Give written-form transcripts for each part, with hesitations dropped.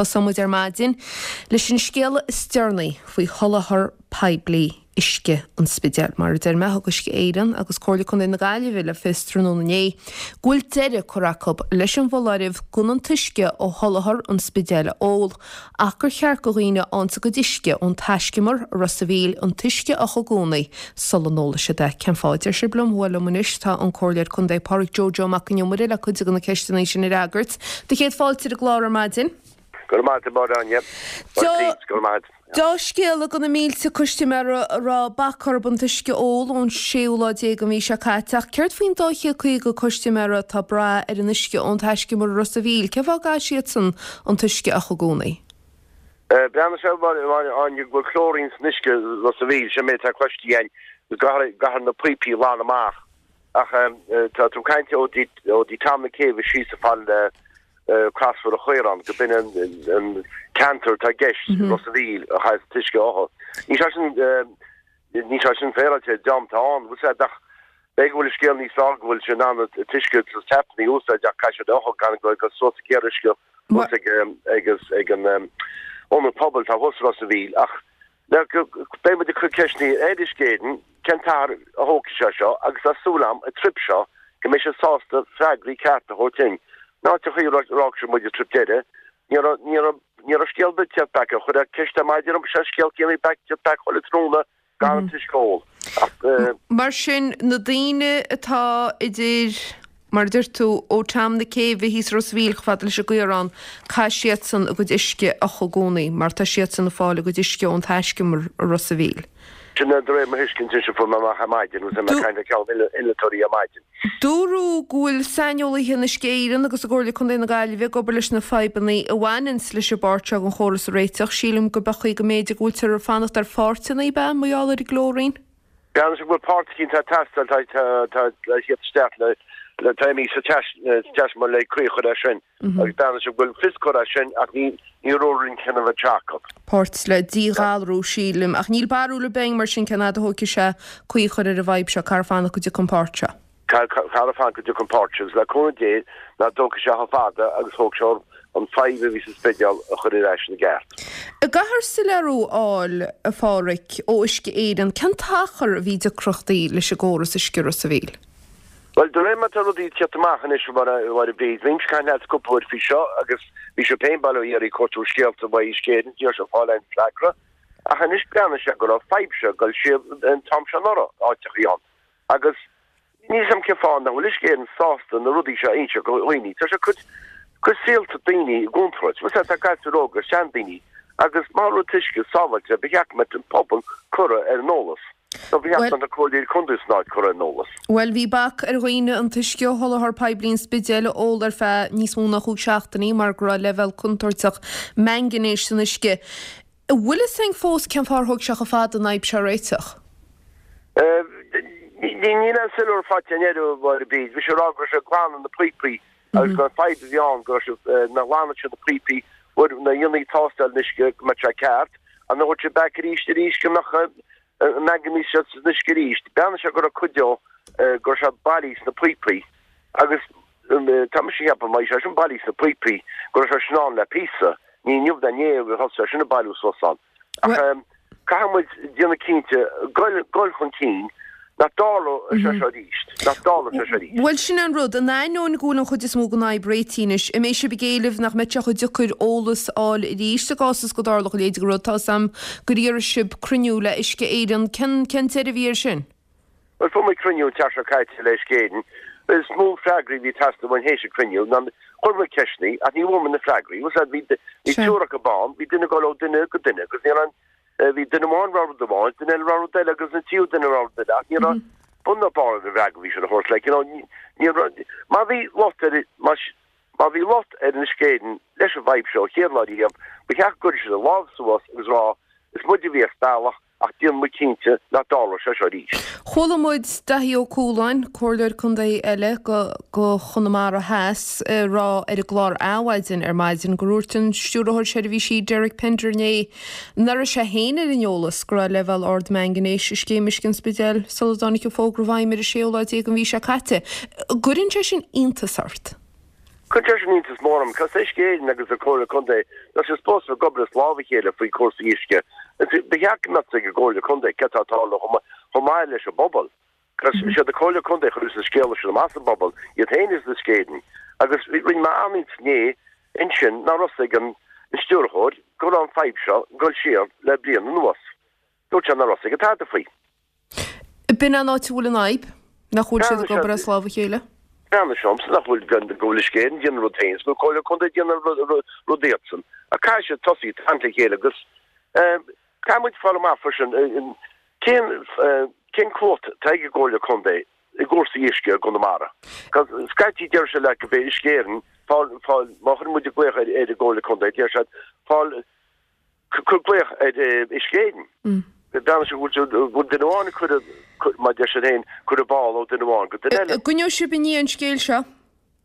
Tosóidh muid ar maidin leis an scéala is deireanaí faoi sholáthar poiblí uisce an Spidéil. Mar a deir mé, thug Uisce Éireann agus Comhairle Contae na Gaillimhe le fios tráthnóna inné go bhfuil deireadh curtha acu leis an bhfoláireamh gan an t-uisce ó sholáthar an Spidéil a ól ach gur cheart go dhaoine a fhaigheanns a gcuid uisce ón taiscumar i Ros a' Mhíl an t-uisce a fhiuchadh i gcónaí sula n-ólfaidh siad é. Cén fáth a deir sibh liom? Bhuel liom anois tá an Comhairleoir Contae Pádraig Joe Joe Mac an Iomaire le cuid de na ceisteanna sin a fhreagairt. Do chéad fáilte ar an gclár ar maidin. Go raibh maith agat, a Mháire Áine. Go raibh maith agat. Dea-scéala do na mílte custaiméara a raibh bac orthu an t-uisce a ól ón séú lá déag den mhí seo caite ach céard faoin 250 custaiméara atá ag brath ar an uisce ón taiscumar i Ros a' Mhíl? Cén fáth a gcaithfidh siadsan an t-uisce a fhiuchadh i gcónaí? Breathnaíonn sé, a Mháire Áine, go bhfuil clóirín san uisce i Ros a' Mhíl, sin méid atá cloiste againn, go gcaithfear na píopaí a ghlanadh amach ach tá tú ag caint ó dtí Tom na Céibhe síos chomh fada le Crosbhóthar an Chaoráin, go b'in an ceantar atá i gceist i Ros a' Mhíl a chaithfeas an t-uisce a fhiuchadh. Níl sé sin, níl sé sin féaráilte an t-am atá ann, bhfuil 's a'd, ach b'fhéidir go bhfuil an scéal níos fearr go bhfuil sé in ann an t-uisce sna tapanna a úsáid ach caithfidh siad é a fhiuchadh gan go dul suas ag iarraidh uisce thuas ag, ag, ag an ionad pobail atá thuas i Ros a' Mhíl ach Beidh muid ag cur ceisteanna ar Uisce Éireann cén t-achar a thógfaidh sé seo agus tá súil agam an trip seo go mbeidh siad sásta freagraí cearta a thabhairt dúinn. Ná an chaoi a d'fhág siad muid an trip deiridh, ní raibh, ní raibh, ní raibh scéal ar bith ag teacht back. Chuir ceist ar maidin orm, sé an scéal céanna back, teacht back chuile tráthnóna gan an t-uisce a ól. Ach. Mar sin, na daoine atá idir. Mar a deir tú, ó Tom na Céibhe thíos i Ros a' Mhíl chomh fada leis an gCaorán, caithfidh siadsan a gcuid uisce a fhiuchadh i gcónaí mar tá siadsan ag fáil a gcuid uisce ón taiscumar i Ros a' Mhíl. Sin é de réir mo thuiscint sin fuair mé amach ar maidin agus mé ag caint le ceann innealtóirí ar maidin. Dúradh go bhfuil saineolaithe in Uisce Éireann agus i gComhairle Contae na Gaillimhe ag obair leis na fadhbanna a bhaineanns leis an bpáirt seo den chóras a réiteach. Sílim go b'é chaoi go mb'fhéidir go bhfuiltear ag fanacht ar pháirteanna, ab ea, mar gheall ar an gclóirín? Breathnaíonn sé go bhfuil páirt eicínt atá ag teastáil, tá le theacht isteach le, le tá imithe sa taiscumar le caoi a chur air sin agus breathnaíonn sé go bhfuil fios curtha air sin ach ní ní raibh aon chinneadh faighte acu. Páirt le díghalrú, sílim, ach níl barúil ar bith againn mar sin cén fhad a thógfaidh sé caoi a chur ar an bhfadhb seo, caithfear fanacht go dtiocfaidh an pháirt seo. Caithfear fanacht go dtiocfaidh an pháirt seo agus le cúnamh Dé nach dtógfaidh sé chomh fada agus thóg sé an fadhb a bhí sa Spidéal a chur ar ais ina gceart. An gcaithfear soiléiriú a fháil, a Pháraic, ó Uisce Éireann, cén t-achar a bhí deacrachtaí leis an gcóras uisce i Ros a' Mhíl? Bhuel, de réir mar tá rudaí ag tíocht amach anois, a Mháire Bríd, bhímse ag caint leat cúpla uair faoi seo agus bhí sibh féin bail ó Dhia oraibh ag cuartú scéalta uaidh Uisce Éireann, ní raibh sibh ag fáil aon freagra. Ach anois breathnaíonn sé go raibh fadhb seo ag dul siar an t-am seo anuraidh, áiteachaí ann. Agus níl 's a'm cén fáth nach bhfuil Uisce Éireann sásta na rudaí seo a inse go dhaoine. Tá sé ag cur cur saolta daoine i gcontúirt. Bhfuil 's a'd, tá gasúir óga, seandaoine, agus má tá an t-uisce sábháilte, ba cheart go mbeadh an pobal curtha ar an eolas. Nó ba cheart go mbeadh na comhairleoirí contae san áit curtha ar an eolas. Bhuel, bhí bac ar dhaoine an t-uisce ó sholáthar poiblí an Spidéil a ól ar feadh níos mó ná chúig seachtainí mar go raibh leibhéal contúirteach mangainéis san uisce. An bhfuil fhios againn fós cén fáth ar thóg sé chomh fada an fhadhb seo a réiteach? Níl aon soiléiriú faighte againn air, a Mháire Bríd. Bhí sé ag rá go raibh sé ag glanadh na píopaí agus gur an fadhb a bhí ann go raibh sé, nuair a ghlanadh siad na píopaí, nuair a dhéanfaí tástáil an uisce go mbeadh sé ceart, ach nuair a thabhairt sé back arís arís go mbeadh an manganese seo san uisce arís. Breathnaigh sé go raibh cuid dó go raibh sé bailithe sna píopaí agus tá mise ag ceapadh má bhí sé sin bailithe sna píopaí go raibh sé sin ann le píosa, ní inniu ná inné a thosaigh sé sin ag bailiú suas ann. Ach caithfidh muid déanamh cinnte goil goil chun cinn nach dtarlóidh sé seo arís, nach dtarlóidh sé seo arís. Bhuel, sin é an rud. In ainneoin go bhfuil an chuid is mó den fhadhb réitithe anois, an mbeidh sibh ag éileamh nach mbeidh sé chomh deacair eolas a fháil arís i gcás is go dtarlódh a leithéid de rud? Tá 'fhios a'm gur iarr sibh cruinniú le Uisce Éireann. Cén cén deireadh a bhí air sin? Bhuel, fuair muid cruinniú an tseachtain seo caite le Uisce Éireann. Is mó freagraí a bhí ag teastáil uainn théis an cruinniú ná chuir muid ceisteanna ach ní bhfuair muid na freagraí. Bhfuil 's a'd, bhí bhí triúr acu ann, bhí duine ag dul ó duine go duine agus ní raibh Bhí duine amháin ag rá rud amháin, duine eile ag rá rud eile agus an tríú duine ag rá rud eile ach ní raibh bun ná barr ar an bhfreagra a bhí siad a thabhairt. Like, you know, ní raibh, má bhí locht ar, má, má bhí locht ar Uisce Éireann leis an bhfadhb seo ó chéad lá riamh, ba cheart go gcuirfeadh siad a lámh suas agus rá, is muid a bhí as bealach ach déanfaidh muid cinnte nach dtarlóidh sé seo arís. Chuala muid Daithí Ó Cualáin, Comhairleoir Contae eile go go Chonamara Theas, ag rá ar an gclár Adhmhaidin ar maidin gur dhúirt an Stiúrthóir Seirbhísí Derek Pender inné nach raibh sé féin ar an eolas go raibh leibhéal ard mangainéis i scéim uisce an Spidéil sula dtáinig an fógra i bhfeidhm ar an séú lá déag den mhí seo caite. An gcuireann sé sin iontas ort? Cuireann sé sin iontas mór orm, cos Uisce Éireann agus an Comhairle Contae, tá siad supposed a bheith ag obair as lámh a chéile faoi cúrsaí uisce. Ba cheart go mbeadh a fhios ag an gComhairle Contae céard tá ag tarlú chomh maith leis an bpobal. Cos is iad an Comhairle Contae a chuireas an scéala sin amach sa bpobal, iad féin is Uisce Éireann. Agus rinne mé an-iontas inné ansin nach raibh a fhios ag an stiúrthóir go raibh an fadhb seo ag dul siar le bliain anuas. Dúirt sé nach raibh a fhios aige tada faoi. B'in an áit a bhfuil an fhadhb, nach bhfuil siad ag obair as lámh a chéile. Breathnaigh sé ormsa nach bhfuil, go bhfuil Uisce Éireann ag déanamh rud féin is go bhfuil Comhairle Contae ag déanamh rud iadsan. Ach caithfidh siad tosaí ag caint le chéile agus caithfidh muid fáil amach freisin cén cén cumhacht atá ag an gComhairle Contae i gcúrsaí uisce i gConamara. Scaití deir siad leat go b'é Uisce Éireann fáil fáil má chuireann muid glaoch ar ar an gComhairle Contae deir siad fáil Cuir glaoch ar Uisce Éireann. Breathnaigh sé go bhfuil duine amháin ag cur, mar deir siad féin, cur an ball ó duine amháin go duine eile. An gcoinneoidh sibh i ndiaidh an scéil seo?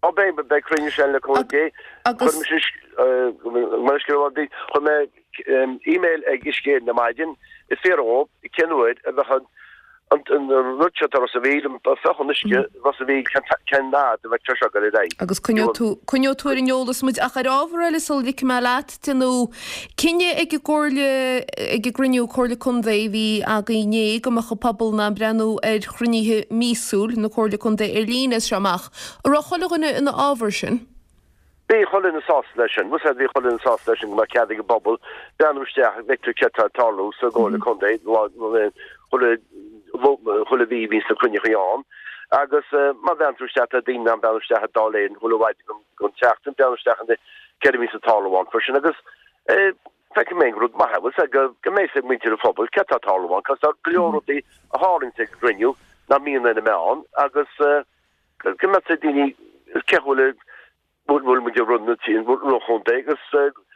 Ó beidh, beidh cruinniú ansin le cúnamh Dé. Agus. Chuir mé email ag Uisce Éireann ar maidin ag fiafraí dhóibh cén uair a bheadh an an rud seo atá Ros a' Mhíl, an faighcheán uisce Ros a' Mhíl, cén fhad a bheidh sé seo ag dul ar aghaidh. Agus coinneoidh tú, coinneoidh tú ar an eolas muid. Ach ar ábhar eile sula ligfidh mé leat, déanadh cinneadh ag an gComhairle, ag an gcruinniú Comhairle Contae a bhí againn inné go mbeadh an pobal in ann breathnú ar chruinnithe míosúil na Comhairle Contae ar líne as seo amach. An raibh chuile dhuine ina fhábhar sin? Bhí chuile dhuine sásta leis sin. Bhfuil a fhios agat, bhí chuile dhuine sásta leis sin go mbeadh cead ag an bpobal breathnú isteach go bhfeictear céard atá ag tarlú sa gComhairle Contae chuile chuile mhí bhíonns na cruinniuchaí ann agus má bhreathnaíonn tú isteach tá daoine in ann breathnú isteach ar Dáil Éireann chuile mhaidin don tseachtain breathnú isteach in céard a bhíonns ag tarlú ann freisin agus feicim féin gur rud maith é bhfuil a fhios agat go go mbeidh a fhios ag muintir an phobail céard atá ag tarlú ann cos tá go leor rudaí a tharlaíonns ag an gcruinniú nach mbíonn ar na meáin agus go mbeadh a fhios ag daoine cé bhfuil bhfuil muid ag run an chontae agus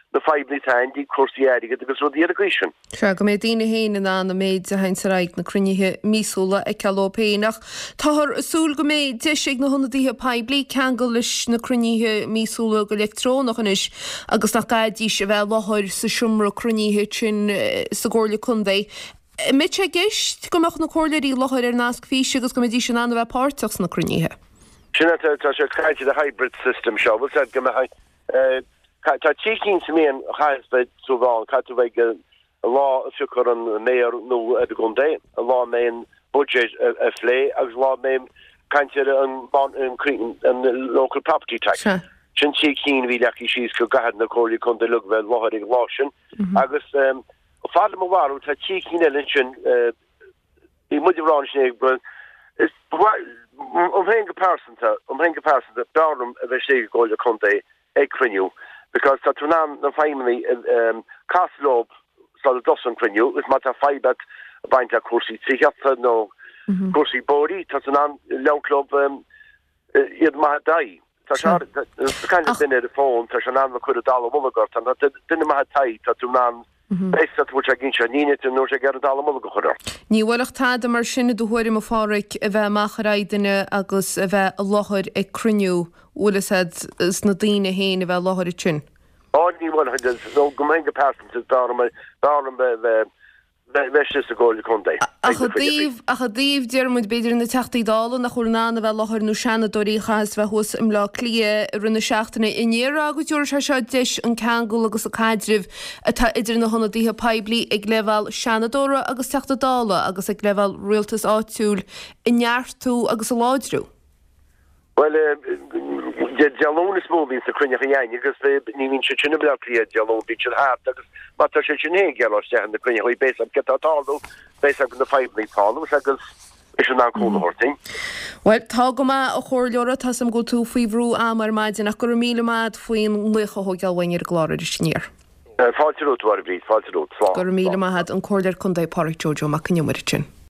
na fadhbanna atá ann i dtaobh cúrsaí airgid agus rudaí ar an gcaoi sin. Sea, go mbeidh daoine féin in ann an méid a théanns ar aghaidh na cruinnithe míosúla a fheiceáil dóibh féin. Ach táthar ag súil go mbeidh deis ag na hionadaithe poiblí ceangal leis na cruinnithe míosúla go leictreonach anois agus nach gcaithfidís a bheith i láthair sa seomra cruinnithe sin sa gComhairle Contae. An mbeidh sé i gceist go mbeadh na comhairleoirí i láthair ar nasc físe agus go mbeidís in ann a bheith páirteach sna cruinnithe? Sin é, tá sé ag caint ar an hybrid system seo, bhfuil a fhios agat go mbeadh, tá trí cinn sa mbliain a chaithfeas bheith tú ann, caithfidh tú bheith ag an lá a phiocfar an mayor nua ar an gcontae, an lá a mbeidh an budget á phlé agus an lá a mbeidh caint ar an local property tax. Sin trí cinn a bhí leagtha síos go gcaithfidh na comhairleoirí contae uilig bheith i láthair ag an lá sin agus Fad le mo bharúil, tá trí cinn eile ansin. Bhí muid ag rá ansin go is dom féin go pearsanta, dom féin go pearsanta, b'fhearr liom a bheith istigh i gComhairle Contae ag cruinniú because tá tú in ann na feidhmeannaigh casadh leo sula dtosaíonn an cruinniú agus má tá fadhb agat ag baint le cúrsaí tithíochta nó cúrsaí bóithre, tá tú in ann labhairt leo iad maith d'aghaidh. Tá sé ag caint le duine ar an bhfón, tá sé in ann cur an dallamullóg ort, tá duine maith id aghaidh, tá tú in ann beidh tú bhfuil sé ag inse, ní ní nó sé ag iarraidh an dallamullóg a chur ort. Ní bhuailfeadh tada mar sin i do thuairim, a Pháraic, a bheith amach ar aghaidh duine agus a bheith i láthair ag cruinniú, bhfuil fhios a'd, is na daoine féin a bheith i láthair ansin. Á, ní bhuailfeadh, nó dom féin go pearsanta, b'fhearr liom, b'fhearr liom bheith Bheith istigh sa gComhairle Contae. Ach i dtaobh, ach i dtaobh, deir muid, b'fhéidir na Teachtaí Dála nach bhfuil in ann a bheith i láthair nó Seanadóirí a chaitheas bheith thuas i mBleá Cliath i rith na seachtaine, an ndéarfá go dtabharfaidh sé seo deis an ceangal agus an caidreamh atá idir na hionadaithe poiblí ag leibhéal Seanadóra agus Teachta Dála agus ag leibhéal rialtas áitiúil a neartú agus a láidriú? Bhuel, Dé Luain is mó a bhíonns na cruinneachaí a'inn agus ní bhíonn siad sin i mBleá Cliath Dé Luain, bíonn siad thart agus má tá siad sin féin ag dul isteach in na cruinneachaí beidh 's a'd céard atá ag tarlú, beidh 's a'd na fadhbanna atá ann agus beidh siad in ann cúnamh a thabhairt duinn. Bhuel, tá go maith, a Chomhairleora, tá 's a'm go bhfuil tú faoi bhrú ama ar maidin ach go raibh míle maith a'd faoin nglaoch a thógáil uainn ar an gclár arís aniar. Fáilte romhat, a Mháire Bhríd, fáilte romhat. Slán. Go raibh míle maith a'd, an Comhairleoir Contae Páraic Joe Joe Mac Con Iomaire ansin.